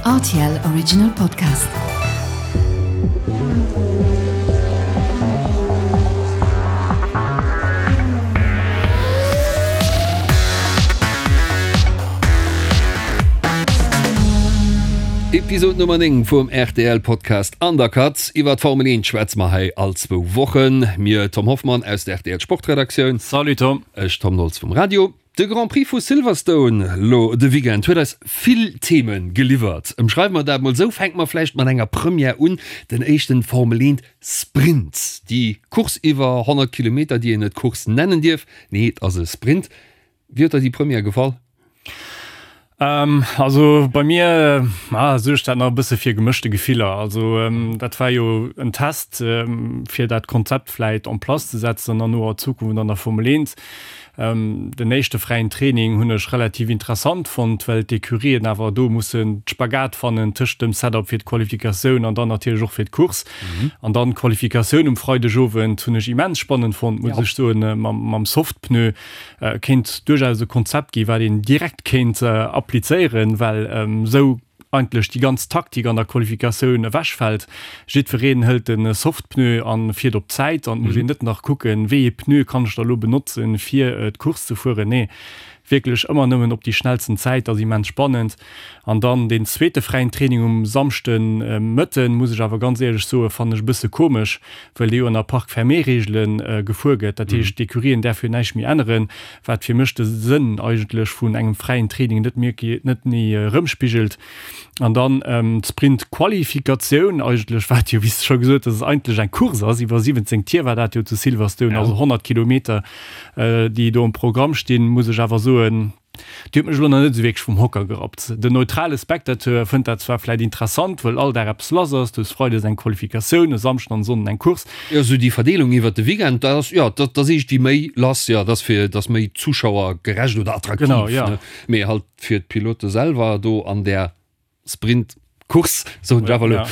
Rtl Original Podcast. Episode Nummer 9 vum rtl Podcast Undercut. Iwwer d'Formel 1 schwätze mer hei all zwou Wochen. Mir, Tom Hoffmann aus der rtl Sportredaktioun. Salut Tom. Ech, Tom Nolz vum Radio. De Grand Prix vu Silverstone lo de Weekend huet eis vill Theme geliwwert. Ëmschreiwe mer dat mol esou, fänke mer vläicht mat enger Première un, den éischten Formel 1 Sprint. Déi Course iwwer 100 Kilometer, déi een net Course nennen dierf, nee et ass e Sprint. Wéi huet der déi Première gefall? Also bei mir suergt dat nach e bësse fir gemëschte Gefiller. Also dat war jo en Test fir dat Konzept vläit en place ze setzen an noer Zukunft an der Formel 1. Den éischte fräien Training hunn ech relativ interessant fonnt, well d'Ecurien awer do mussen d'Spagat fannen tëscht dem Setup fir d'Qualifikatioun an dann natierlech och fir d'Course. An dann d'Qualifikatioun um Freidegowend hunn ech immens spannend fonnt, muss ech soen, mam Softpneu. Kéint duerchaus e Konzept gi wat een direkt kéint applizéieren, well esou eigentlech déi ganz Taktik an der Qualifikatioun ewechfält. Jiddwereen hëlt de Softpneu a fiert op d'Zäit an et muss een net nach kucken, wéi ee Pneu kann ech da elo benotzen, fir d'Course ze fueren. Nee, wierklech ëmmer nëmmen op déi schnellsten Zäit, ass immens spannend. An dann deen zweete fräien Training um Samschde Mëtten, muss ech awer ganz éierlech soen, fannen ech e bësse komesch, well dee jo ënner Parc fermé-Reegele gefuer gëtt. Dat heescht, d'Ecurien däerf jo näischt méi änneren, wat fir mech de Sënn eigentlech vun engem fräien Training net méi net méi erëmspigelt. An dann d'Sprint-Qualifikatioun eigentlech, wat jo, wéi s de scho gesot hues, eigentlech eng Course ass, iwwer 17 Tier war dat jo zu Silverstone, also 100 Kilometer, déi do um Programm stinn, muss ech awer soen, Déi huet mech elo nach net esou wierklech vum Hocker gerappt. Den neutrale Spectateur fënnt dat zwar vläit interessant, wëll all Dag eppes lass ass, du hues Freides eng Qualifikatioun, e Samschden an e Sonnden eng Course. Jo, esou déi Verdeelung iwwert de Weekend, dat ass, jo, dat ass iergendwéi méi lass, jo, dat ass fir, dat ass méi zuschauergerecht oder attraktiv, Genau, jo. ne? Mee halt fir d'Pilote selwer do an där Sprint Course soen ech awer elo.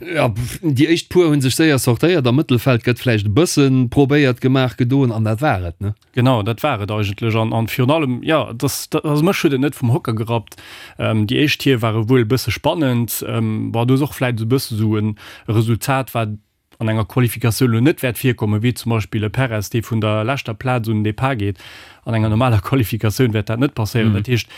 Ja, déi éischt puer hunn sech séier sortéiert, am Mëttelfeld gëtt vläicht e bëssen probéiert gemaach, gedoen an dat war et, ne? Genau, dat war et eigentlech an an virun allem, jo, dass also mech huet et net vum Hocker gerappt. Déi éischt Tier ware wuel e bësse spannend, bon, do ass och vläicht esou e bësse sou e Resultat wat an enger Qualifikatioun elo net wäert virkommen, wéi zum Beispill e Perez, dee vun der leschter Plaz un den Depart geet. An enger normaler Qualifikatioun wäert dat net passéieren. Dat heescht,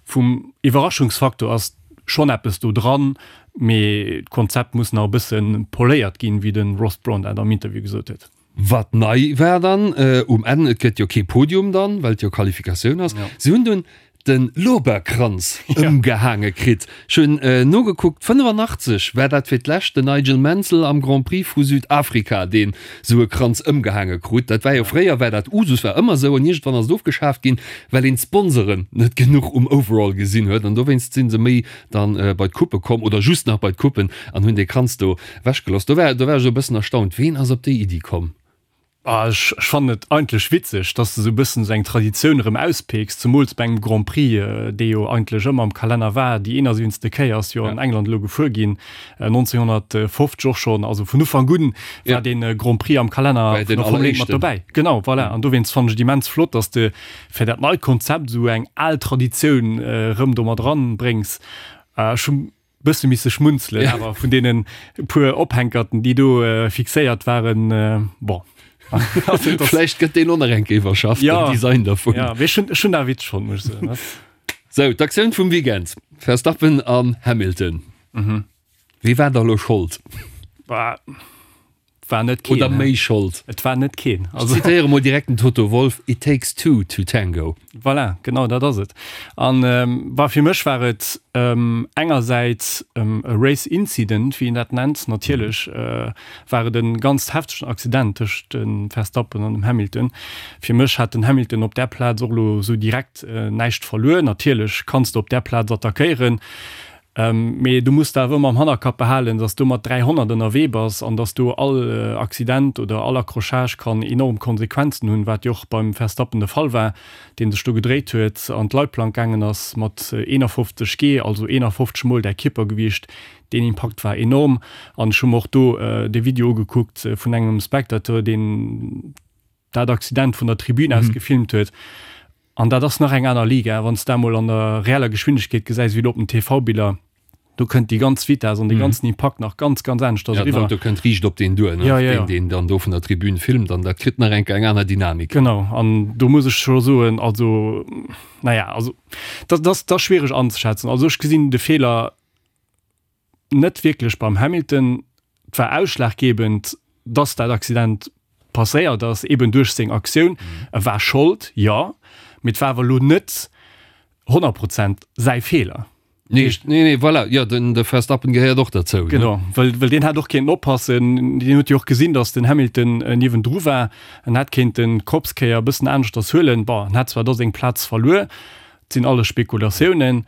vum Iwwerraschungsfaktor ass schonn eppes do dran, mee d'Konzept muss nach e bësse poléiert ginn, wéi de Ross Brawn dat am Interview gesot huet. Wat nei war dann um Enn, et gëtt jo kee Podium dann, well et jo Qualifikatioun ass. Si hunn dunn de Lorbeerkranz ëmgehaange kritt. Ech hunn nogekuckt, 85 war dat fir d'lescht den Nigel Mansell am Grand Prix vu Südafrika, deen esou e Kranz ëmgehaange krut. Dat war jo fréier war dat Usus, war ëmmer esou an iergendwann ass et ofgeschaaft ginn, well een d'Sponsoren net genuch um Overall gesinn huet an dowéinst si se méi dann bei d'Coupe komm oder just nach bei d'Coupen an hunn dee Kranz do ewechgeloss. Do war do war ech esou e bëssen erstaunt, ween ass op déi Iddi komm? Ah, ech fannen et eigentlech witzeg, dass de sou bëssen sou eng Traditioun erëm auspicks, zemools bei engem Grand Prix, dee jo eigentlech ëmmer am Kalenner war. Déi 71. Kéier ass jo an England elo gefuer ginn, 1950 och schonn. Also vun Ufank un war dee Grand Prix am Kalenner vun der Formel 1 mat dobäi. Genau, voilà. An dowéinst fannen ech et immens flott, dass de fir dat neit Konzept esou eng al Traditioun erëm do mat eranbréngs. Ech hu Bësse misse schmunzelen, awer vun deenen puer Ophänkerten, déi do fixéiert waren, bon. Vläicht gëtt deen och nach eng Kéier iwwerschafft, den Design dervun. Ja, mee ech hunn, ech hunn dat witzeg fonnt, muss ech soen. Sou, d'Aktioun vum Weekend, Verstappen an Hamilton. Wie war da elo Schold? Bah. War net keen. Oder méi Schold. Et war net keen. Also. Ech zitéiere mol direkt den Toto Wolff, It takes two to tango. Voilà, genau dat ass et. An bah, fir mech war et engersäits e Race Incident, wéi een dat nennt. Natierlech war et e ganz heftegen Accident tëscht dem Verstappen an dem Hamilton. Fir mech hat den Hamilton op där Plaz och elo esou direkt näischt verluer. Natierlech kanns de op där Plaz attackéieren. Mee du muss der awer ëmmer am Hannerkapp behalen, dass du mat 300 ënnerwee bass an dass do all Accident oder all Accrochage kann enorm Konsequenzen hunn, wat jo och beim Verstappen de Fall war, dee sech do gedréit huet, an d'Leitplank gaangen ass mat 51 G, also 51 mol däi Kierpergewiicht. Deen Impakt war enorm an ech hu mer och do de Video ugekuckt vun engem Spectateur, deen dat Accident vun der Tribün aus gefilmt huet. An dat ass nach eng aner Liga, wann s de dat emol an der reeller Geschwindegkeet gesäis, wéi elo op den TV-Biller. Do kënnt déi ganz Vitess an dee ganzen Impakt nach ganz, ganz aneschters Ja, den eriwwer. Auto kënnt riicht op deen duer, ne? Ja, ja, ja. Deen, deen dann do vun der Tribün filmt an dat kritt nach eng Kéier eng aner Dynamik. Genau, an do muss ech scho soen, also, naja, also dat ass, dat ass schwiereg anzeschätzen. Also ech gesinn de Feeler net wierklech beim Hamilton. Et war ausschlaggebend, dass dat Accident passéiert ass, eben duerch seng Aktioun. E war Schold, jo, mee et war awer elo net 100 Prozent säi Feeler. Nee, nee, nee, voilà, jo, den, de Verstappen gehéiert och derzou. Ne? Genau, well, well deen hätt och kéinten oppassen. Deen huet jo och gesinn, dass den Hamilton niewendru war. En hätt kéinten d'Kopskéier e bëssen aneschters huelen. Bon, en hätt zwar da seng Plaz verluer, Et sinn alles Spekulatiounen,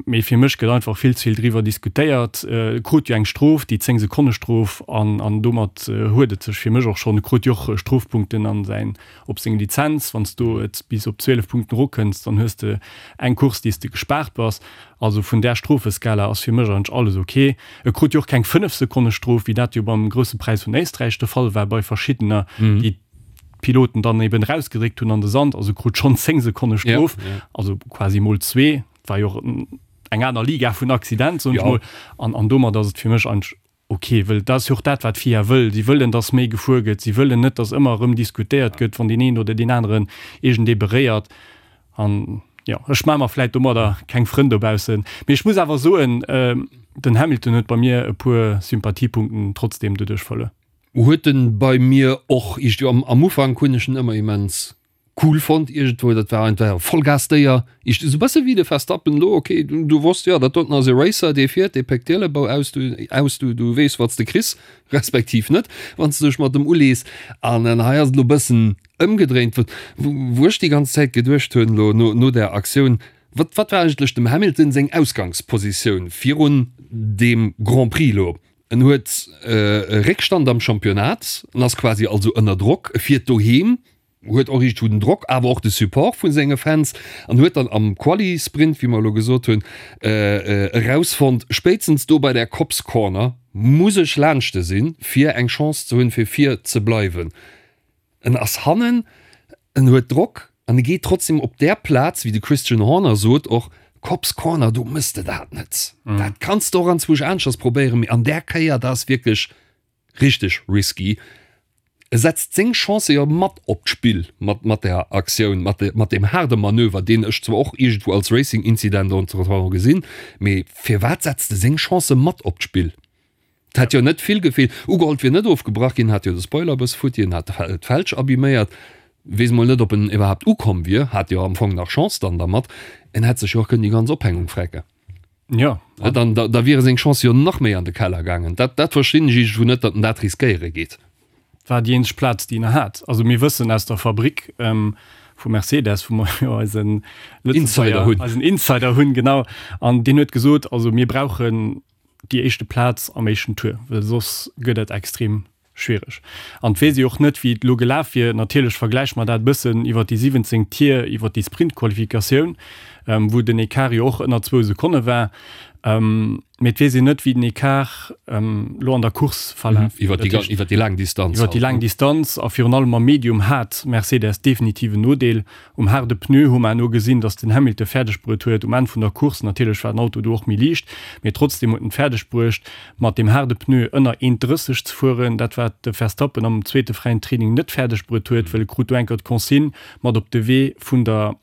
mee fir mech gëtt einfach vill ze vill driwwer diskutéiert. E krut jo eng Strof, déi 10 Sekonne Strof, an an domat huet et sech fir mech och schonn. E krut jo och Strofpunkten an säin, op seng Lizenz. Wann s du et bis op 12 Punkten erokënns, dann hues de eng Course, déi s de gespaart bass. Also vun där Strofeskala ass fir mech eigentlech alles ok. E krut jo och keng 5 Sekonne Strof, wéi dat jo beim Grousse Präis vun Éisträich de Fall war bei verschiddener, déi d'Piloten dann eben rausgedréckt hunn an de Sand, also krut schonn 10 Sekonne Strof, ja, ja. also quasi mol zwee, war jo och eng aner Liga vun Accident, soen ech mol, an, an domat ass et fir mech eigentlech ok, wëll dat ass jo och dat, wat d'FIA wëll, si wëllen, dass méi gefuer gëtt, si wëllen net, dass ëmmer erëm diskutéiert gëtt, wann deen een oder deen aneren iergendee beréiert an jo, ech maache mer vläit domadder keng Frënn dobaussen, mee ech muss awer soen, den Hamilton huet bei mir e puer Sympathiepunkten trotzdem doduerch verluer. Huet en bei mir och iergendwéi am am Ufank hunn ech en ëmmer immens cool fonnt iergendwou, dat war einfach e Vollgasdéier, iergend esou bësse wéi de Verstappen elo, ok du du wosst jo dat doten ass e Racer, dee fiert, dee péckt d'Ielebou aus, du aus du du weess wat s de kriss, respektiv net, wann s de dech mat em ulees. An hei ass et elo bëssen ëmgedréint, wou wou ech déi ganz Zäit geduecht hunn elo no no där Aktioun, wat wat war eigentlech dem Hamilton seng Ausgangspositioun virun deem Grand Prix elo? En huet e Réckstand am Championnat, en ass quasi also ënner Drock, e fiert doheem, huet och iergendwou den Drock, awer och de Support vu senge Fans an huet dann am Quali-Sprint, wéi mer elo gesot hunn, erausfonnt, spéitstens do bei där Copse Corner muss ech laanschte sinn, fir eng Chance ze hunn, fir vir ze bleiwen. En ass hannen, en huet Drock an e geet trotzdem op där Plaz, wéi de Christian Horner sot och, Copse Corner, do mëss de dat net. Dat kanns de och anzwousch aneschters probéieren, mee an där Kéier, dat ass wierklech richteg risky. E setzt seng Chancë jo mat op d'Spill mat mat där Aktioun, mat mat deem haarde Manöver, deen ech zwar och iergendwou als Racing-Incident entretemps gesinn, mee firwat setzt e seng Chancë mat op d'Spill? Et hätt jo net vill gefeelt. Ugeholl, et wier net ofgebrach ginn, hat jo de Spoiler e bësse futti, en hat d'Felg abiméiert. Weess mol net, ob en iwwerhaapt ukomm wier, hat jo am Fong nach Chance dann dermat. En hätt sech jo och kënnen déi ganz Ophängung frecken. Jo. Dann, da, da wiere seng Chancë jo nach méi an de Keller gaangen. Dat, dat verstinn ech iergendwou net, datt en dat riskéiere geet. War déi eenzeg Plaz, déi en nach hat. Also mir wëssen aus der Fabrik vu Mercedes, wou mer jo eisen Insider hunn. Eisen Insider hunn, genau. An deen huet gesot, also mir brauchen déi éischte Plaz am éischten Tour, well soss gëtt et extrem schwiereg. An et weess ee och net, wéi et elo gelaf wier. Natierlech vergläiche mer dat e bëssen iwwer déi 17 Tier, iwwer déi Sprintqualifikatioun, wou den Ecart jo och ënner zwou Sekonne war. Mee et weess een net, wéi den Ecart elo an der Course verlaf wier. Iwwer déi laang Distanz. Iwwer déi laang Distanz a virun allem am Medium hat Mercedes definitiv en Nodeel. Um haarde Pneu hu mer eno gesinn, dass den Hamilton fäerdeg bruet huet um Enn vun der Course, natierlech war den Auto do och méi liicht, mee trotzdeem huet en et fäerdeg bruecht mat deem haarde Pneu ënner 1,30 ze fueren, dat wat de Verstappen am zweete fräien Training net fäerdeg bruet huet, well e krut do eng Kéier d'Consigne mat op de Wee vun der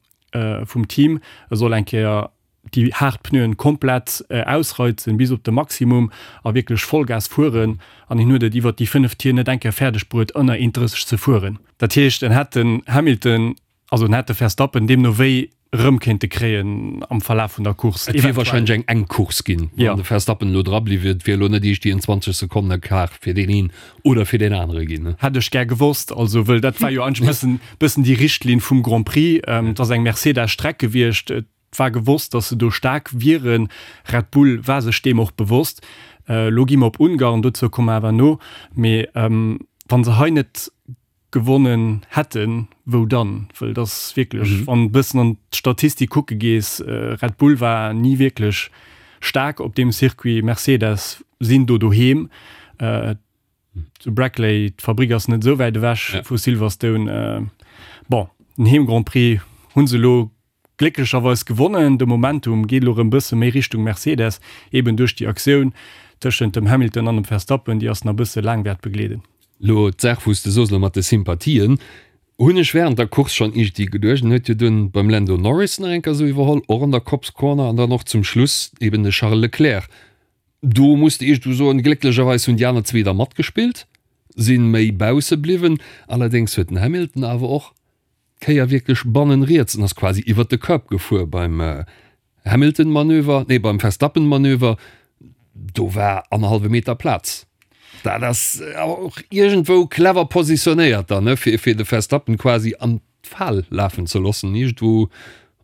vum Team, e soll eng Kéier déi haart Pneuen komplett ausreizen bis op de Maximum a wierklech Vollgas fueren an hien huet et iwwert déi 5 Tier net eng Kéier fäerdeg bruet ënner 1,30 ze fueren. Dat heescht en hätt den Hamilton, also en hätt de Verstappen deemno wéi erëm kéinte kréien am Verlaf vun der Course. Et wier wahrscheinlech eng enk Course ginn, wann de Verstappen elo dra bliww wier. Et wier elo net iergendwéi en 20 Sekonne Quart fir deen een oder fir deen anere ginn. Hätt ech gär gewosst, also wëll dat war jo eigentlech bëssen bëssen déi Richtlinn vum Grand Prix. Et ass eng Mercedes-Streck gewiescht. Et war gewosst, datt se do staark wieren. Red Bull war sech deem och bewosst. Elo gi mer op Ungarn, dozou komme mer awer no. Mee wa se hei net gewonnen hätten, wou dann? Wëll et ass wierklech, wann e bëssen an d'Statistik kucke gees, Red Bull war ni wierklech staark op deem Circuit, Mercedes sinn do doheem. Zu Brackley, d'Fabrik ass net esou wäit ewech vu Silverstone. Bon, den Heem-Grand Prix hu se elo. Glécklecherweis gewonnen. De Momentum geet elo erëm bësse méi Richtung Mercedes, eben duerch déi Aktioun tëschent dem Hamilton an dem Verstappen, déi ass nach bësse laang wäert begleeden. Lo d'Saach wou s de soos, lo mat de Sympathien, hunn ech während der Course schonn iergendwéi geduecht, en huet jo dunn beim Lando Norris nach eng Kéier esou iwwerholl, och an der Copse Corner, an dann och zum Schluss eben de Charles Leclerc. Do muss de iergendwou soen, glécklecherweis hunn déi aner zwee da matgespillt, sinn méi bausse bliwwen. Allerdéngs huet den Hamilton awer och d'Kéier wierklech bannen riets en ass quasi iwwert de Curb gefuer beim Hamilton-Manöver, nee beim Verstappen-Manöver, do war annerhallwe Meter Plaz. Dat ass awer och iergendwou clever positionéiert dann, ne, fir fir de Verstappen quasi an d'Fal lafen ze loossen. Iergendwou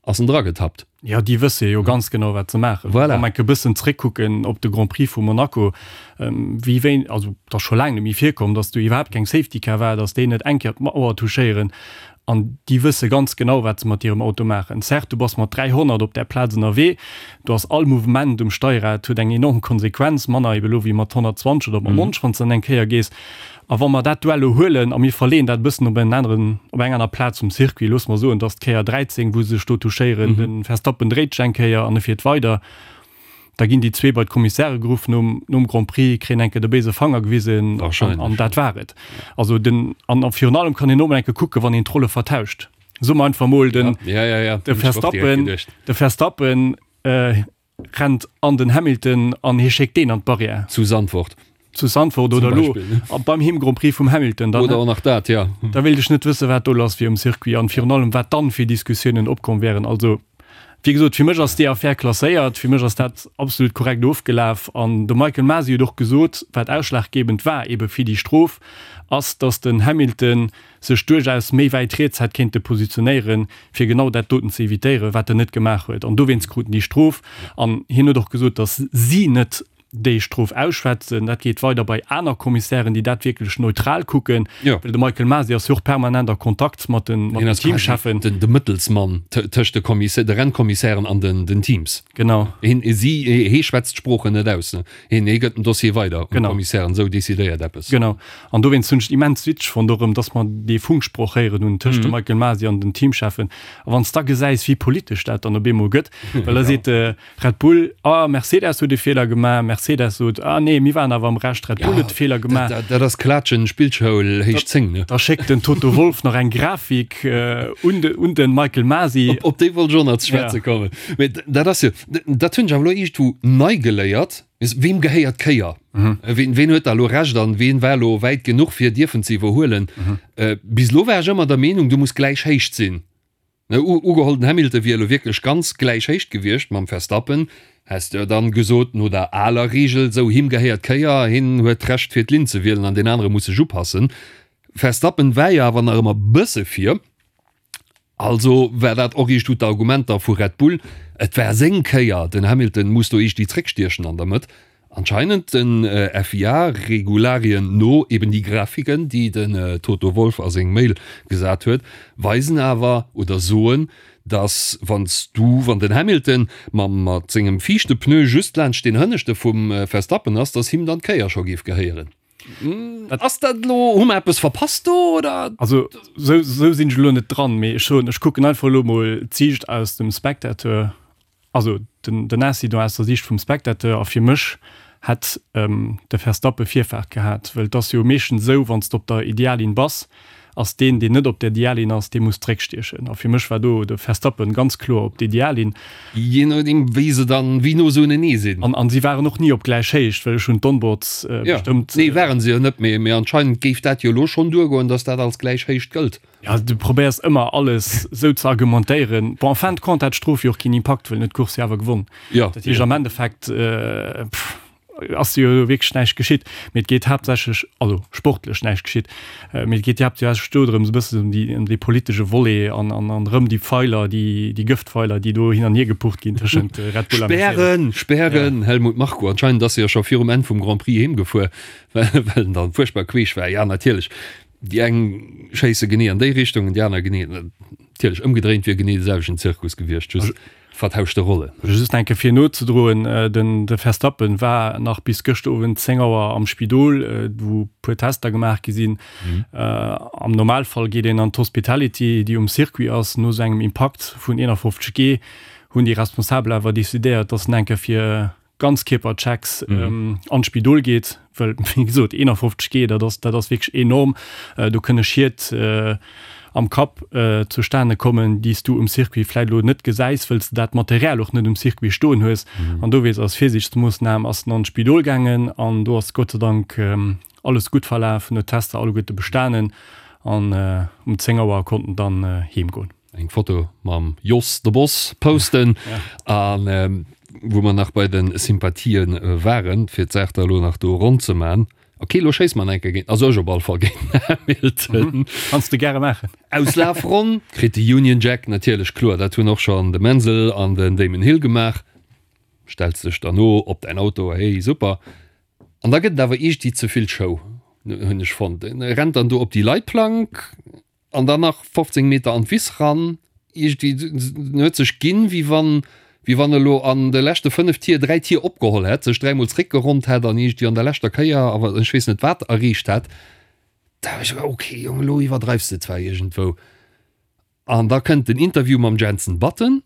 ass en dragetappt. Jo, déi wësse jo ganz genau, wat se maachen. Voilà. Wa mer enke bëssen zréckkucken op de Grand Prix vu Monaco, wéi wéi, also et ass scho laang net méi virkomm, datt do iwwerhaapt keng Safety Car war, datt déi net eng Kéier d'Mauer touchéieren. An déi wësse ganz genau, wat se mat hirem Auto maachen. Certes, du bass mat 300 op där Plaz ënnerwee, do ass all Mouvement um Steierrad huet eng enorm Konsequenz, manner ebe lo wéi mat 120 oder mat 90, wann s de dann eng Kéier gees. A wa mer dat Duell elo huelen a mir verleeën dat e bëssen op en aneren, op eng aner Plaz vum Circuit, loosse mer soen, et ass d'Kéier 13, wou se sech do touchéieren, de Verstappen dréit sech eng Kéier an e fiert weider, da ginn déi zwee bei d'Kommissäre geruff nom, nom Grand Prix, kréien eng Kéier de béise Fanger gewisen an, an dat war et. Also den, an a virun allem kann een och mol eng Kéier kucken, wann een d'Rolle vertauscht. Soe mer einfach mol, den, Ja, ja, ja, de Verstappen, de Verstappen rennt an den Hamilton an hie schéckt deen an d'Barrière. Zu Zandvoort. Zu Zandvoort oder elo beim Heem Grand Prix vum Hamilton. Dann, oder och nach dat, ja. Da wéilt ech net wëssen, wat do lass wier um Circuit an virun allem, wat dann fir Diskussiounen opkomm wären. Also, wéi gesot, fir mech ass déi Affär klasséiert, fir mech ass dat absolut korrekt ofgelaf an de Michael Masi huet och gesot, wat ausschlaggebend war ebe fir déi Strof, ass, datt den Hamilton sech duerchaus méi wäit riets hätt kéinte positionéieren, fir genau dat doten ze evitéieren, wat en net gemaach huet. An dowéinst krut en déi Strof. An hien huet och gesot, datt si net déi Strof ausschwätzen. Dat geet weider bei aner Kommissären, déi dat wierklech neutral kucken. Well de Michael Masi ass jo och permanent a Kontakt mat den Teamcheffen. De Mëttelsmann tëscht de Kommissär, de Rennkommissären an den Teams. Genau. Hien, si, hee schwätzt d'Sproochen net aus. Hien, hee gëtt den Dossier weider un d'Kommissären. Esou decidéiert eppes. Genau. An dowéinst hunn ech et immens witzeg fonnt och erëm, dass mer dee Funksproch héieren hunn tëscht dem Michael Masi an den Teamcheffen. A wann s da gesäis, wéi politesch dat dann op eemol gëtt, well da seet de Red Bull, ah, Mercedes huet e Feeler gemaach, Mercedes sot, ah nee, mir waren awer am Recht, Red Bull huet de Feeler gemaach. Dat ass Klatschen, Spillschoul héich 10, ne? Da schéckt den Toto Wolff nach eng Grafik un de, un de Michael Masi. Op déi wollt ech och nach ze schwätze kommen. Mee dat ass jo, dat hunn ech awer elo iergendwou nei geléiert, Weem gehéiert d'Kéier? Ween, ween huet da elo Recht an ween war elo wäit genuch fir dierfen ze iwwerhuelen? Bis elo war ech ëmmer der Meenung, du muss gläich Héicht sinn. Ne, ugeholl den Hamilton wier elo wierklech ganz gläich Héicht gewiescht mam Verstappen, häss de jo dann gesot, no der aler Reegel, sou him gehéiert d'Kéier, hien huet d'Recht fir d'Linn ze wielen an deen anere muss sech upassen. Verstappen war jo awer nach ëmmer bësse vir. Also war dat och iergendwou d'Argumenter vu Red Bull, et war seng Kéier, den Hamilton muss do iergendwéi zréckstiechen an der Mëtt. Anscheinend den FIA-Regularien no, eben déi Grafiken, déi den Toto Wolff a seng Mail gesat huet, weisen awer oder soen, datt wann s du, wann den Hamilton mam mat sengem viischte Pneu just laanscht deen hënneschte vum Verstappen ass, datt him dann d'Kéier scho géif gehéieren. Ass dat elo, hu mer eppes verpasst do oder? Also sou, sou sinn ech elo net dran, mee ech soen, ech kucken einfach elo mol d'Siicht aus dem Spectateur, also den, den Incident aus der Siicht vum Spectateur a fir mech hätt de Verstappen Virfaart gehat, well et ass jo meeschtens esou, wann s de op der Ideallinn bass, ass deen, deen net op der Ideallinn ass, dee muss zréckstiechen. A fir mech war do de Verstappen ganz kloer op der Ideallinn. Jee nodeem, wéi se dann, wéi no se unenee sinn. An, an si waren och ni op gläich Héicht, well ech hunn d'Onboards bestëmmt. Jo, nee, waren se jo net, mee, mee anscheinend géif dat jo elo schonn duergoen, dass dat als gläich Héicht gëllt. Jo, du probéiers ëmmer alles esou ze argumentéieren. Bon, en fin de compte hat d'Strof jo och keen Impakt, well en huet d'Course jo awer gewonn. Jo. Dat heescht am Endeffekt, pff, ass jo wierklech näischt geschitt, mee et geet haaptsächlech, also sportlech näischt geschitt, mee et geet haaptsächlech do drëms e bëssen ëm déi, ëm dee politesche Volet an, an, an erëm déi Pfeiler, déi, déi Gëftpfeiler, déi do hin an hier gepucht ginn tëschent Red Bull a Mercedes. Spären, spären, Helmut Marko, anscheinend ass e jo scho virum Enn vum Grand Prix heemgefuer, well, well en dann fuerchtbar queesch war. Ja, natierlech. Déi eng schéisse genee an déi Richtung an déi aner genee. Natierlech, ëmgedréint wier genee de selwechten Zirkus gewiescht, just vertauschte Rollen. Just eng Kéier fir nozedroen, Den de Verstappen war nach bis gëschter Owend 10 Auer am Spidol, wou puer Tester gemaach gi sinn. Am Normalfall geet een an d'Hospitality, déi um Circuit ass. No esou engem Impakt vun 51 G hunn déi Responsabel awer decidéiert, dass en eng Kéier fir Ganzkierperchecks an d'Spidol geet, well wéi gesot 51 G, dat ass dat ass wierklech enorm. Do kënne Schied am Kapp zustane kommen, déi s du um Circuit vläit elo net gesäis, wëll s de dat Material och net um Circuit stoen hues. An dowéinst als Virsiichtsmoossnam ass en an d'Spidol gaangen an do ass Gott sei Dank alles gutt verlaf, en huet d'Tester alleguerte bestanen an um 10 Auer konnt en dann heem goen. Eng Foto mam Jos de Boss posten an wou mer nach bei den Sympathien waren, fir d'Saach da elo nach do ronn ze man. Ok, elo schéisse mer enke géint, also ech op all Fall géint den Hamilton. Kanns de gäre maachen. Auslafronn kritt de Union Jack natierlech, kloer, dat hunn och schonn de Mansell an den Damon Hill gemaach. Stells dech derno op däin Auto, hey super. An da gëtt et awer iergdwi ze vill Show, hunn ech fonnt. En rennt dann do op déi Leitplank. An dann nach 15 Meter an d'Wiss ran. Iergendwéi, en huet sech ginn, wéi wann, wéi wann e lo an de leschte 5 Tier 3 Tier opgeholl hätt, sech dräimol zréckgeronnt hätt an iergendwéi an der leschter Kéier awer ech weess net wat erreecht hätt. Da hu ech gedacht, okay Jong, elo iwwerdreifs de zwar iergendwou. An da kënnt den Interview mam Jenson Button.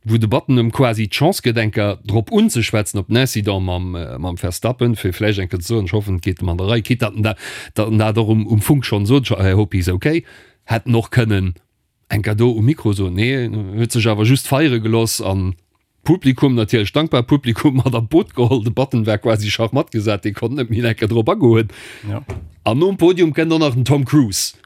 wou de Button em quasi d'Chance gëtt eng Kéier drop unzeschwätzen op den Incident mam mam Verstappen, fir vläicht eng Kéier ze soen, ech hoffen et geet em an der Rei, quitte datt en dat datt en dat och um um Funk schonn sot, I hope he's okay, hätt en och kënnen eng Kéier do um Mikro soen. Nee, en huet sech awer just feiere gelooss an d'Publikum, natierlech dankbar Publikum, mat an d'Boot geholl. De Button war quasi schachmatt gesat, dee konnt net méi eng Kéier drop agoen. An nom Podium kënnt och nach den Tom Cruise.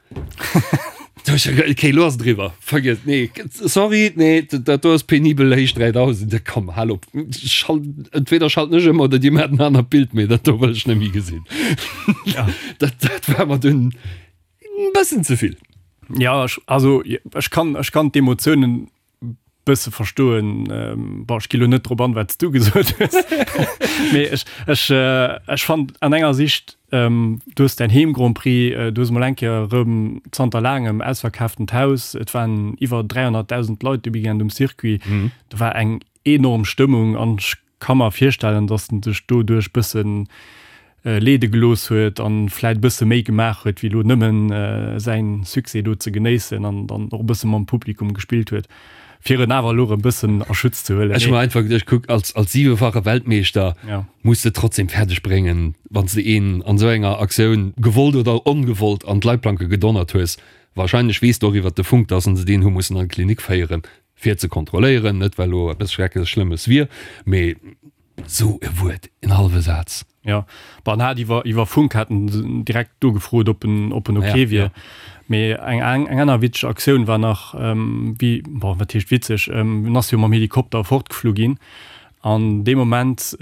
Okay, lo ass et eriwwer. Vergiess, nee, sorry, nee, dat do ass penibel héich 3000. Komm, hal op. Schalt, entweder schalten ech ëm oder dir maacht en anert Bild, mee dat do wëll ech net méi gesinn. Ja. Dat, dat war mer dunn e bëssen ze vill. Ja, ech, also ech kann, ech kann d'Emotiounen bësse verstoen. Bon, ech gi lo net drop an, wat s du gesot hues. Mee ech, ech, ech fand an enger Sicht, du hues däin Heem-Grand Prix, du hues emol eng Kéier erëm zanter laangem ausverkaaftent Haus, et waren iwwer 300.000 Leit de Weekend um Circuit, do war eng enorm Stëmmung an ech Ka mer virstellen, dass en sech doduerch bëssen leede gelooss huet an vläit bësse méi gemaach huet wéi elo nëmmen säin Succès do ze genéissen an dann och e bësse mam Publikum gespillt huet, fir en awer elo erëm bëssen a Schutz ze huelen. Ech hu mer einfach geduecht, kuck, als als siwefache Weltmeeschter muss de trotzdem fäerdeg bréngen, wann s de een an esou enger Aktioun, gewollt oder ongewollt, an d'Leitplanke gedonnert hues, wahrscheinlech weess de och iwwert de Funk, dass en se deen hu mussen an d'Klinik féieren, fir ze kontrolléieren, net well elo eppes schrecklech Schlëmmes wier, mee sou e Wuert, en hallwe Saz. Jo, bon, en hat iwwer, iwwer Funk hat en direkt do gefrot, ob en, ob en ok wier. Mee eng, eng aner witzeg Aktioun war nach, wéi, bon, wat heescht witzeg, en ass jo mam Helikopter fortgeflu ginn an dee Moment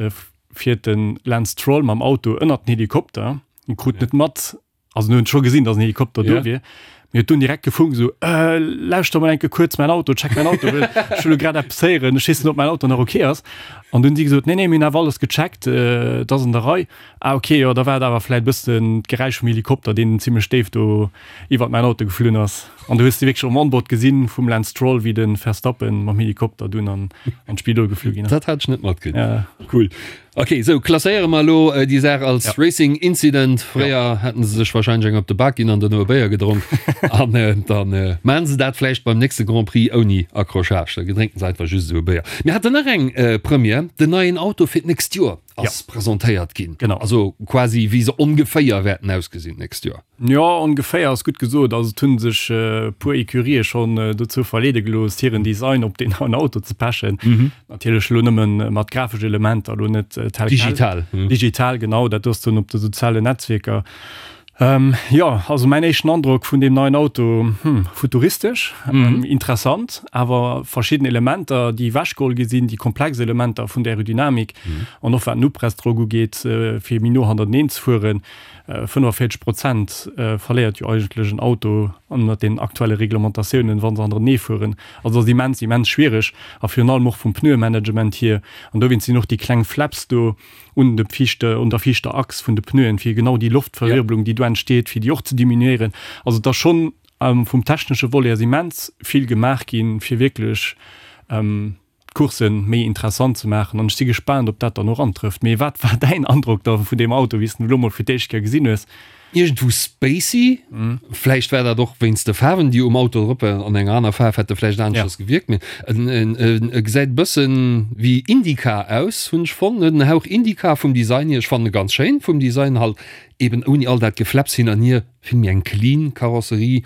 fiert de Lance Stroll mam Auto ënnert den Helikopter, en krut net mat, Also en huet scho gesinn, dass en Helikopter do wier. Mee huet dunn direkt gefunkt esou, Äh, lauschter mol enke kuerz mäin Auto, check mäin Auto, well ech hu lo grad eppes héieren, ech weess net, ob mäin Auto nach ok ass. An dunn hu si gesot, Nee, nee, mir hunn awer alles gecheckt, et ass an der Rei. Ah ok, jo, da war et awer vläit e bëssen d'Geräisch vum Helikopter, deen zimmlech déif do iwwert mäin Auto geflunn ass. An du hues de wierklech um Onboard gesinn vum Lance Stroll, wéi de Verstappen mam Helikopter dunn an an d'Spidol geflu ginn ass. Dat hat ech net matkritt. Cool. Ok, sou klasséiere mer elo déi Saach als Racing Incident. Fréier hätten se sech wahrscheinlech eng op de Bak ginn an duerno e Béier gedronk. An da maachen se dat vläicht beim nächste Grand Prix ouni Accrochage. Da drénken se einfach just esou e Béier. Mir haten nach eng Première, den neien Auto fir d'nächst Joer ass presentéiert ginn. Genau. Also quasi wéi se ongeféier wäerten ausgesinn d'nächst Joer. Jo, ongeféier ass gutt gesot. Also et hu sech e puer Ecurië schonn dozou verleede gelooss, hiren Design op deen neien Auto ze pechen. Natierlech elo nëmme mat grafesch Elementer, elo net tel quel. Digital. Digital, genau, dat ass dann op de sozialen Netzwierker. Jo, also mäin éischten Androck vun deem neien Auto, hm, futuristesch, interessant, awer verschidden Elementer, déi ewechgeholl gi sinn, déi komplex Elementer vun der Aerodynamik an och wat den Upressdrock ugeet, fir méi no hannerteneen ze fueren, 45 Prozent verléiert jo eigentlech en Auto ënnert den aktuelle Reglementatiounen, wa se hannerenee fueren. Also dat ass immens, immens schwiereg a virun allem och vum Pneuemanagement hier. An dowéinst sinn och déi kleng Flaps do un de viischte, un der viischter Achs vun de Pneuen, fir genau déi Loftverwirbelung, déi du. do entsteet, fir déi och ze diminuéieren. Also et ass schonn vum technesche Volet ass immens vill gemaach ginn, fir wierklech d'Course méi interessant ze maachen. An ech si gespaant, ob dat dann och antrëfft. Mee wat war däin Androck da vun deem Auto, wéi s de en elo mol fir d'éischt Kéier gesinn hues? Iergendwou spacey. Vläicht war dat och wéinst de Faarwen, déi um Auto drop waren. An enger aner Faarf hätt e vläicht aneschters gewierkt. Mee e gesäit e bëssen wéi IndyCar aus, hunn ech fonnt. En huet en Hauch IndyCar vum Design hier. Ech fannen e ganz schéin vum Design, halt eben ouni all dat Gefläpps hin an hier. Vill méi eng clean Karosserie.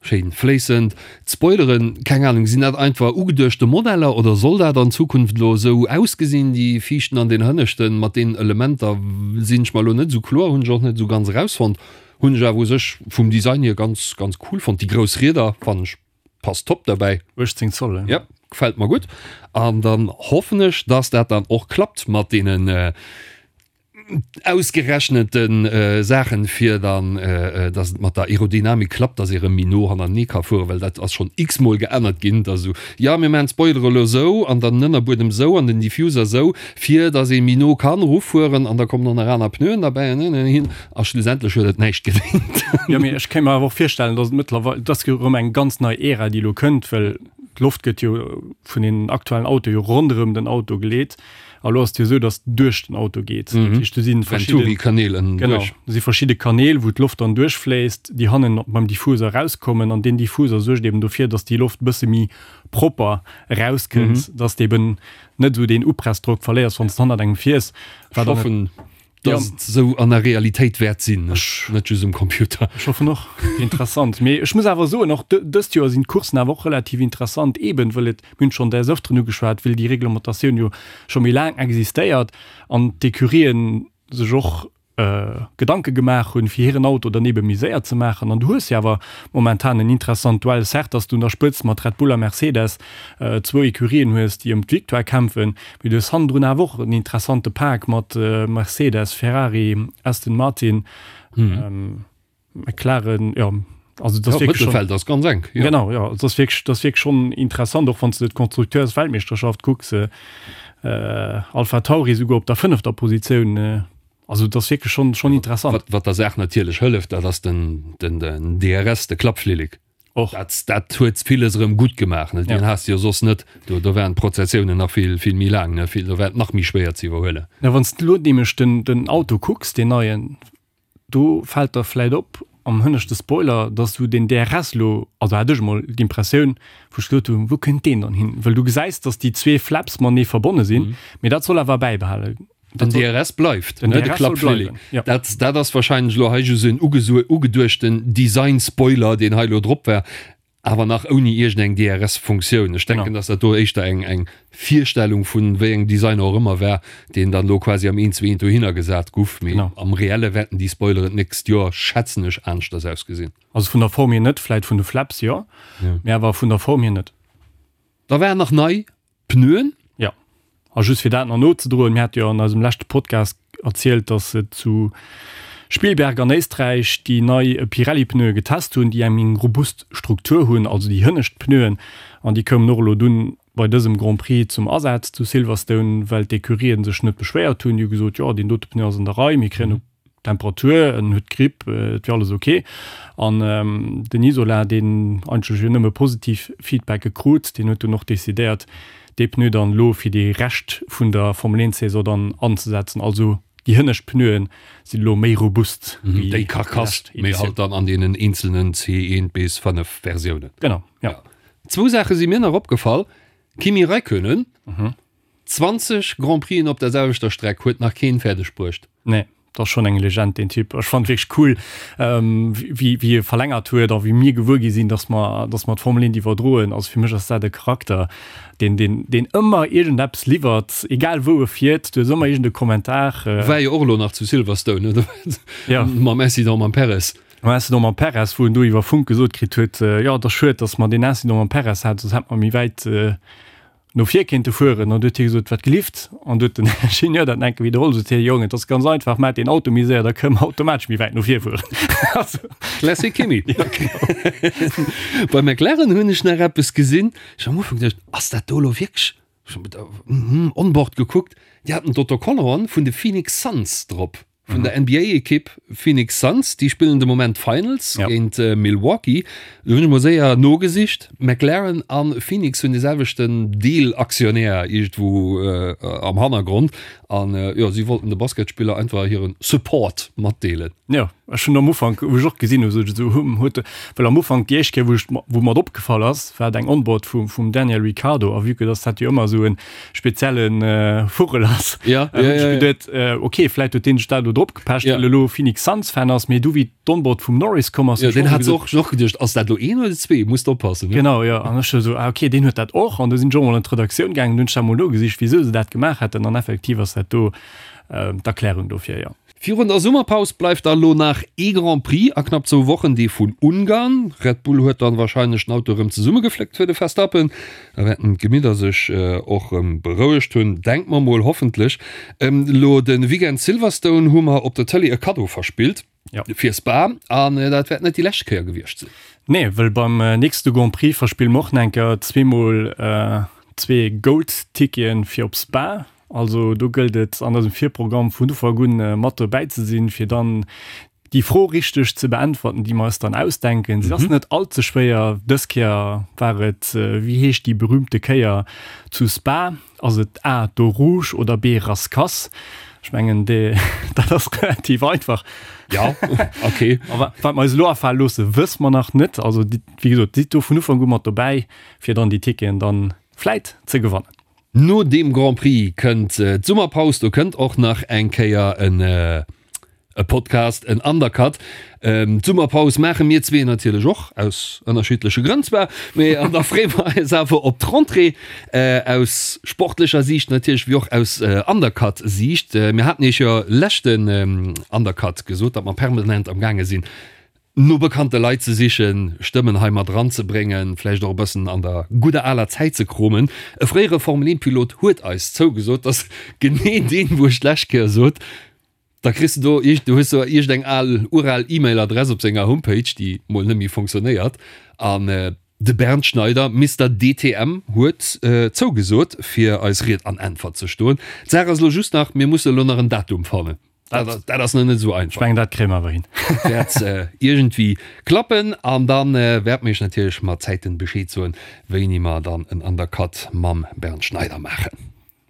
Schéin fléissend. D'Spoileren, keng Ahnung, sinn dat einfach ugeduechte Modeller oder soll dat an Zukunft elo esou ausgesinn, déi viischten an den hënneschten mat deenen Elementer sinn ech mer elo net esou kloer, hunn ech och net esou ganz erausfonnt. Hunn ech awer u sech vum Design hier ganz ganz cool fonnt. Déi grouss Rieder fannen ech passt top derbäi. 18 Zoll, he? Yep, gefällt mer gutt. An dann hoffen ech, dass dat dann och klappt mat deenen ausgerechnete Saachen, fir dann, dass et mat der Aerodynamik klappt, dass ee rëm méi no hannertenee ka fueren, well dat ass schonn x-mol geännert ginn, dass esou, jo mir maachen d'Spoilere elo esou an dann den Ënnerbuedem esou an den Diffuser esou, fir dass ee méi no kann erufueren an da kommen och nach aner Pneuen derbäi an hin an hin a schlussendlech huet et näischt gedéngt. Jo, mee ech kéint mer awer och virstellen, dass et mëttlerweil, et ass jo erëm eng ganz nei Ära, déi elo kënnt, well d'Loft gëtt jo vun den aktuellen Autoe jo ronderëm den Auto geleet. A lo ass et jo esou, datt duerch den Auto geet. Dat heescht, do si verschidde Venturi-Kanäl ënnen Genau, duerch. do si verschidde Kanäl, wou d'Loft dann duerchfléisst, déi hannen beim Diffuser erauskommen. An deen Diffuser suergt eben dofir, datt déi Loft e bësse méi propper erauskënnt, datt de eben net esou deen Upressdrock verléiers, wann s de hannert engem fiers. Wat dann. Ech hoffen, dass et esou an der Realitéit wäert sinn, net just um Computer. Ech hoffen och. Interessant. Mee ech muss awer soen, och dëst Joer sinn d'Courssen awer och relativ interessant, eben wëll et, mir hunn et schonn des Öfteren ugeschwat, wëll déi Reglementatioun jo scho méi laang existéiert an d'Ecurien sech och Gedanke gemaach hunn, fir hiren Auto dann ebe méi séier ze maachen. An du hues jo awer momentan en interessant Duell, certes, dass du un der Spëtzt mat Red Bull a Mercedes zwou Ecurien hues, déi ëm d'Victoire kämpfen, Mee du hues hannendrun awer och en interessante Pak mat Mercedes, Ferrari, Aston Martin, McLaren, jo, also dat ass wierklech schonn. Mëttelfeld ass ganz enk, jo. Genau, jo, dat ass wierklech, dat ass wierklech schonn interessant, och wann s de d'Konstrukteursweltmeeschterschaft kucks, Alpha Tauri souguer op der fënnefter Positioun, also dat ass wierklech schonn, schonn interessant. Wat, wat der Saach natierlech hëlleft, dat ass den, den, den DRS, de Klappflillek. Och. Dat, dat huet villes erëm gutt gemaach, ne? Deen has de jo soss net. Do, do waren d'Prozessiounen nach vill, vill méi laang, ne? Vill, do war et nach méi schwéier ze iwwerhuelen. Na, wann s de elo nämlech den, den Auto kucks, deen neien, do fält der vläit op am hënneschte Spoiler, dass du den DRS elo, also hat ech emol d'Impressioun, wou ech gesot hunn, wou kënnt deen dann hin? Well du gesäis, dass déi zwee Flaps matenee verbonne sinn, mee dat soll awer bäibehale. Den DRS bleift, ne, de Klappflilling. Dat, dat ass wahrscheinlech elo hei just en ugeduechten Design-Spoiler, deen hei elo drop war, awer nach ouni iergendeng DRS-Funktioun. Ech denken, dass dat do éischter eng, eng Virstellung vun wéi engem Designer och ëmmer war, deen dann elo quasi am eent zu eent dohinner gesat guff. Mee am Reelle wäerten déi Spoileren d'nächst Joer, schätzen ech, aneschters ausgesinn. Also vun der Form hier net, vläit vun de Flaps jo, mee awer vun der Form hier net. Da waren nach nei Pneuen? Jo. A just fir dat nach nozedroen, mir hate jo an eisem leschte Podcast erzielt, dass se zu Spielberg an Éisträich déi nei Pirelli-Pneue getest hunn, déi eng méi robust Struktur hunn, also déi hënnescht Pneuen. An déi koumen och elo dunn bei dësem Grand Prix zum Asaz zu Silverstone, well d'Ecurien sech net beschwéiert hunn. Déi hu gesot, jo, deen dote Pneu ass an der Rei, mir kréien e Temperatur, en huet Gripp, et wier alles ok. An den Isola, deen eigentlech jo nëmme positiv Feedbacke krut, deen huet dunn och decidéiert, dee Pneu dann elo fir dee Rescht vun der Formel 1 Saison dann anzesetzen. Also déi hënnescht Pneuen sinn elo méi robust wéi déi Karkass, mee halt dann an deenen eenzelnen C1 bis 5 Versiounen. Genau, jo. Zwou Saache si mir nach opgefall, Kimi Räikkönen, 20 Grand Prixen op der selwechter Streck huet nach keen fäerdeg bruecht. Nee, dat ass schonn eng Legend deen Typ. Ech fannen et wierklech cool wéi wéi e verlängert huet a wéi mir gewuer gi sinn, dass mer dass mer d'Formel 1 iwwerdroen. Also fir mech ass dat e Charakter deen deen deen ëmmer iergendeppes liwwert, egal wou e fiert, du hues ëmmer iergende Kommentar. War jo och elo nach zu Silverstone, ne? Jo. Mam Incident mam Perez. Mam Incident mam Perez, wou en do iwwer Funk gesot kritt huet, jo et ass schued, dass mer deen Incident mam Perez haten, soss hätt mer méi wäit no vir kéinte fueren an du huet hie gesot, wat gelift? An du huet den Ingenieur dat enke widderholl, sot hie, Jong, et ass ganz einfach, maach deen Auto méi séier, da kënne mer automatesch méi wäit no vir fueren. Also. Classic Kimi. Bei McLaren hunn ech nach eppes gesinn, ech hu am Ufank geduecht, ass dat do elo wierklech, ech hu onboard gekuckt, déi haten d'Autocollanten vun de Phoenix Suns drop. Vun der NBA-Ekipp Phoenix Suns. Déi spillen de Moment d'Finals géint Milwaukee. Do hunn ech mol séier nogesicht. McLaren a Phoenix hunn de selwechten Deelaktionär iergendwou am Hannergrond. An jo, si wollten de Basketspiller einfach hire Support matdeelen. Jo, ech hunn am Ufank, wou ech och gesinn hu, sot ech esou, Hm, huet de, well am Ufank déi éischt Kéier, wou ech, wou mer et opgefall ass, war et eng Onboard vum, vum Daniel Ricciardo. A vue que dass dat jo ëmmer esou e spezielle Vugel ass, ja, ja, ja, ja. Geduet, äh, okay, vläit huet deen sech dat elo drop gepecht, ja. well elo Phoenix Suns Fan ass, mee du wéi d'Onboard vum Norris komm ass, ja, den hat och och geduecht, ass dat lo een oder zwee, musst oppassen, ne? Genau, ja, an ech so, ah, okay, deen huet dat och, an du sinn ech och mol an d'Redaktioun gaangen, hunn ech dat mol nogesicht, wisou se dat gemaach hätten, an effektiv ass dat do äh, d'Erklärung dofir, ja. Virun der Summerpaus bleift da lo nach ee Grand Prix a knapp zwou Wochen, dee vun Ungarn. Red Bull huet dann warscheinlech den Auto erëm zesummegefléckt fir de Verstappen. Da wäerten d'Gemidder sech och erëm berouegt hunn, denke mer mol, hoffentlech. Elo de Weekend Silverstone hu mer op der Tëlee e Kaddo verspillt fir Spa an dat wäert net déi lescht Kéier gewiescht sinn. Nee, well beim nächste Grand Prix verspille mer och nach eng Kéier zweemol zwee Gold-Ticketen fir op Spa. Also do gëllt et an eisem Virprogramm vun Ufank un mat dobäi ze sinn, fir dann déi Fro richteg ze beäntwerten, déi mer eis dann ausdenken. Se ass net all ze schwéier. Dës Kéier war et, Wéi heescht déi berühmte Kéier zu Spa? Ass et A, d'Eau Rouge oder B, Rascasse? Ech mengen, dat ass relativ einfach. Ja, okay. A wat mer eis elo afale loosse, wësse mer nach net. Also wéi gesot, sidd do vun Ufank u mat dobäi, fir dann déi Ticketen dann vläit ze gewannen. No deem Grand Prix kënnt d'Summerpaus, do kënnt och nach eng Kéier en e Podcast, en Undercut. D'Summerpaus maache mir zwee natierlech och, aus ënnerschiddleche Grënn zwar, mee an da freeë mer eis awer op d'Rentrée, aus sportlecher Siicht natierlech, wéi och aus Undercut-Siicht. Mir haten iech jo leschten Undercut gesot, datt mer permanent am gaange sinn, no bekannte Leit ze sichen, Stëmmen hei mat eranzebréngen, vläicht och e bëssen an der gudder aler Zäit ze kromen. E fréiere Formel-1-Pilot huet eis zougesot, dass genee deen, wou ech d'lescht Kéier sot, da kriss de do iergend, du hues do iergendeng al, ural E-Mail-Adress op senger Homepage, déi mol net méi fonctionnéiert. An de Bernd Schneider, Mister DTM, huet zougesot, fir eis Ried an Äntwert ze stoen. D'Saach ass elo just nach, mir musse elo nach en Datum fannen. Dat, dat ass nach net esou einfach. Ech mengen, dat kréie mer awer hin. Wäert iergendwéi klappen. An da wäerte mir iech natierlech mat Zäiten Bescheed soen, wéini mer dann en Undercut mam Bernd Schneider maachen.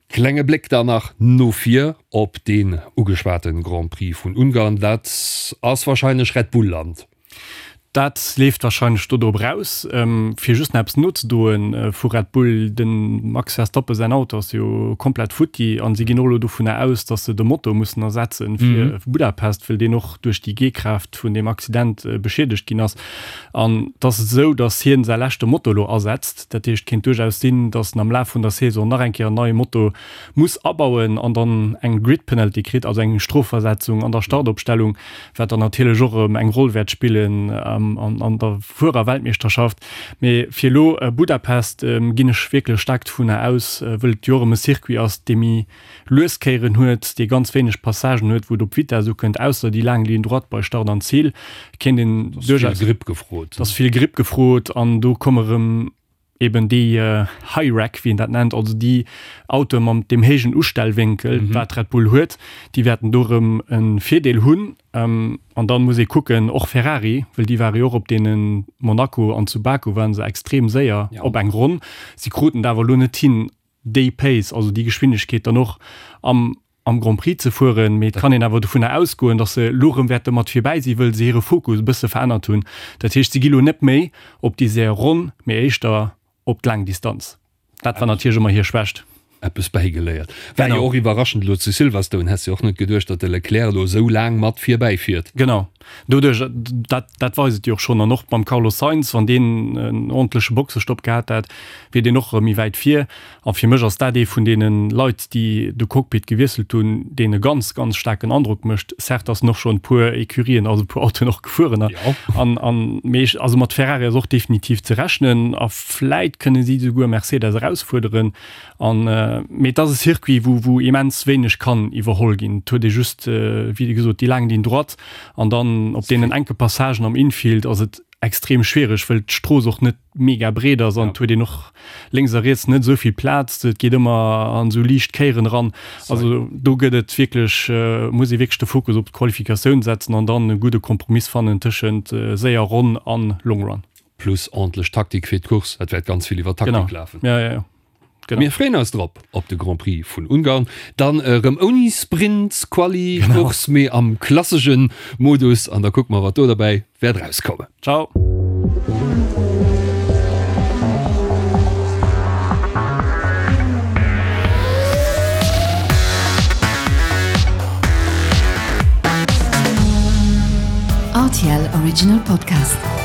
Klenge Bléck dann nach no vir op deen ugeschwate Grand Prix vun Ungarn. Dat ass warscheinlech Red Bull Land. Dat leeft warscheinlech do drop eraus. Fir just nach eppes nozedroen vu Red Bull, De Max Verstappen säin Auto ass jo komplett futti an si ginn och elo dovunner aus, datt se de Motor mussen ersetzen fir Budapest, well deen och duerch déi G-Kraaft vun deem Accident beschiedegt ginn ass. An et ass esou, datt hien säi leschte Motor elo asetzt. Dat heescht, et kéint duerchaus sinn, datt en am Laf vun der Saison nach eng Kéier en neie Motor muss abauen an dann eng Grid Penalty kritt, also eng Strofversetzung an der Startopstellung, wat dann natierlech och erëm eng Roll wäert spillen an der Fuererweltmeeschterschaft. Mee fir elo Budapest ginn ech wierklech staark dovunner aus, wëll et jo och erëm e Circuit ass, dee méi lues Kéieren huet, dee ganz wéineg Passagen huet, wou et op Vitess ukënnt, ausser déi laang Ligne droite bei Start an Zil, kéint een duerchaus. Et ass vill Gripp gefrot. Et ass vill Gripp gefrot an do komme erëm eben déi High Rack, wéi een dat nennt, also déi Autoe mam deem héijen Ustellwénkel, wat Red Bull huet, déi wäerten do erëm e Virdeel hunn. An dann muss ee kucken, och Ferrari, well déi ware jo och op deene Monaco an zu Baku ware se extrem séier op eng Ronn. Si kruten et awer elo net hin, déi Pace, also déi Geschwindegkeet dann och am am Grand Prix ze fueren, mee et kann een awer dovunner ausgoen, datt se elo erëm wäerte mat virbäi sinn, wëll se hire Fokus e bësse verännert hunn. Dat heescht, si gi lo net méi op déi séier Ronn, mee éischter op d'laang Distanz. Dat war natierlech ëmmer hir Schwächt. Eppes bäigeléiert. War jo och iwwerraschend elo zu Silverstone. Häss jo och net geduecht, datt de Leclerc elo esou laang mat virbäi fiert. Genau, doduerch, dat, dat weist et jo och schonn. An och beim Carlos Sainz, wann deen en ordentleche Boxestopp gehat hätt, wier deen och erëm méi wäit vir. A fir mech ass dat ee vun deene Leit, déi de Cockpit gewiesselt hunn, deen e ganz, ganz staarken Androck mécht. Certes ass en och schonn e puer Ecurien, also e puer Autoen och gefueren. An, an, mee ech, also mat Ferrari ass och definitiv ze rechnen a vläit kënne si souguer Mercedes erausfuerderen. An, mee et ass e Circuit, wou, wou immens wéineg kann iwwerholl ginn. Et huet ee just, wéi gesot, déi laang Ligne droite an dann op deenen enke Passagen am Infield ass et. extrem schwiereg, wëll d'Strooss och net mega breet ass an et huet een och lénks a riets net esou vill Plaz. Et geet ëmmer an esou liicht Kéieren eran. Also do gëtt et wierklech, muss ee wierklech de Fokus op d'Qualifikatioun setzen an dann e gudde Kompromiss fannen tëschent séier Ronn an Long Run. Plus ordentlech Taktik fir d'Course. Et wäert ganz vill iwwer Taktik lafen. Genau, jo, jo, jo. Genau. Mir freeën eis drop op de Grand Prix vun Ungarn. Dann erëm ouni Sprint, Quali, Course, mee am klassesche Modus. An da kucke mer, wat do derbäi wäert erauskommen. Ciao. RTL Original Podcast.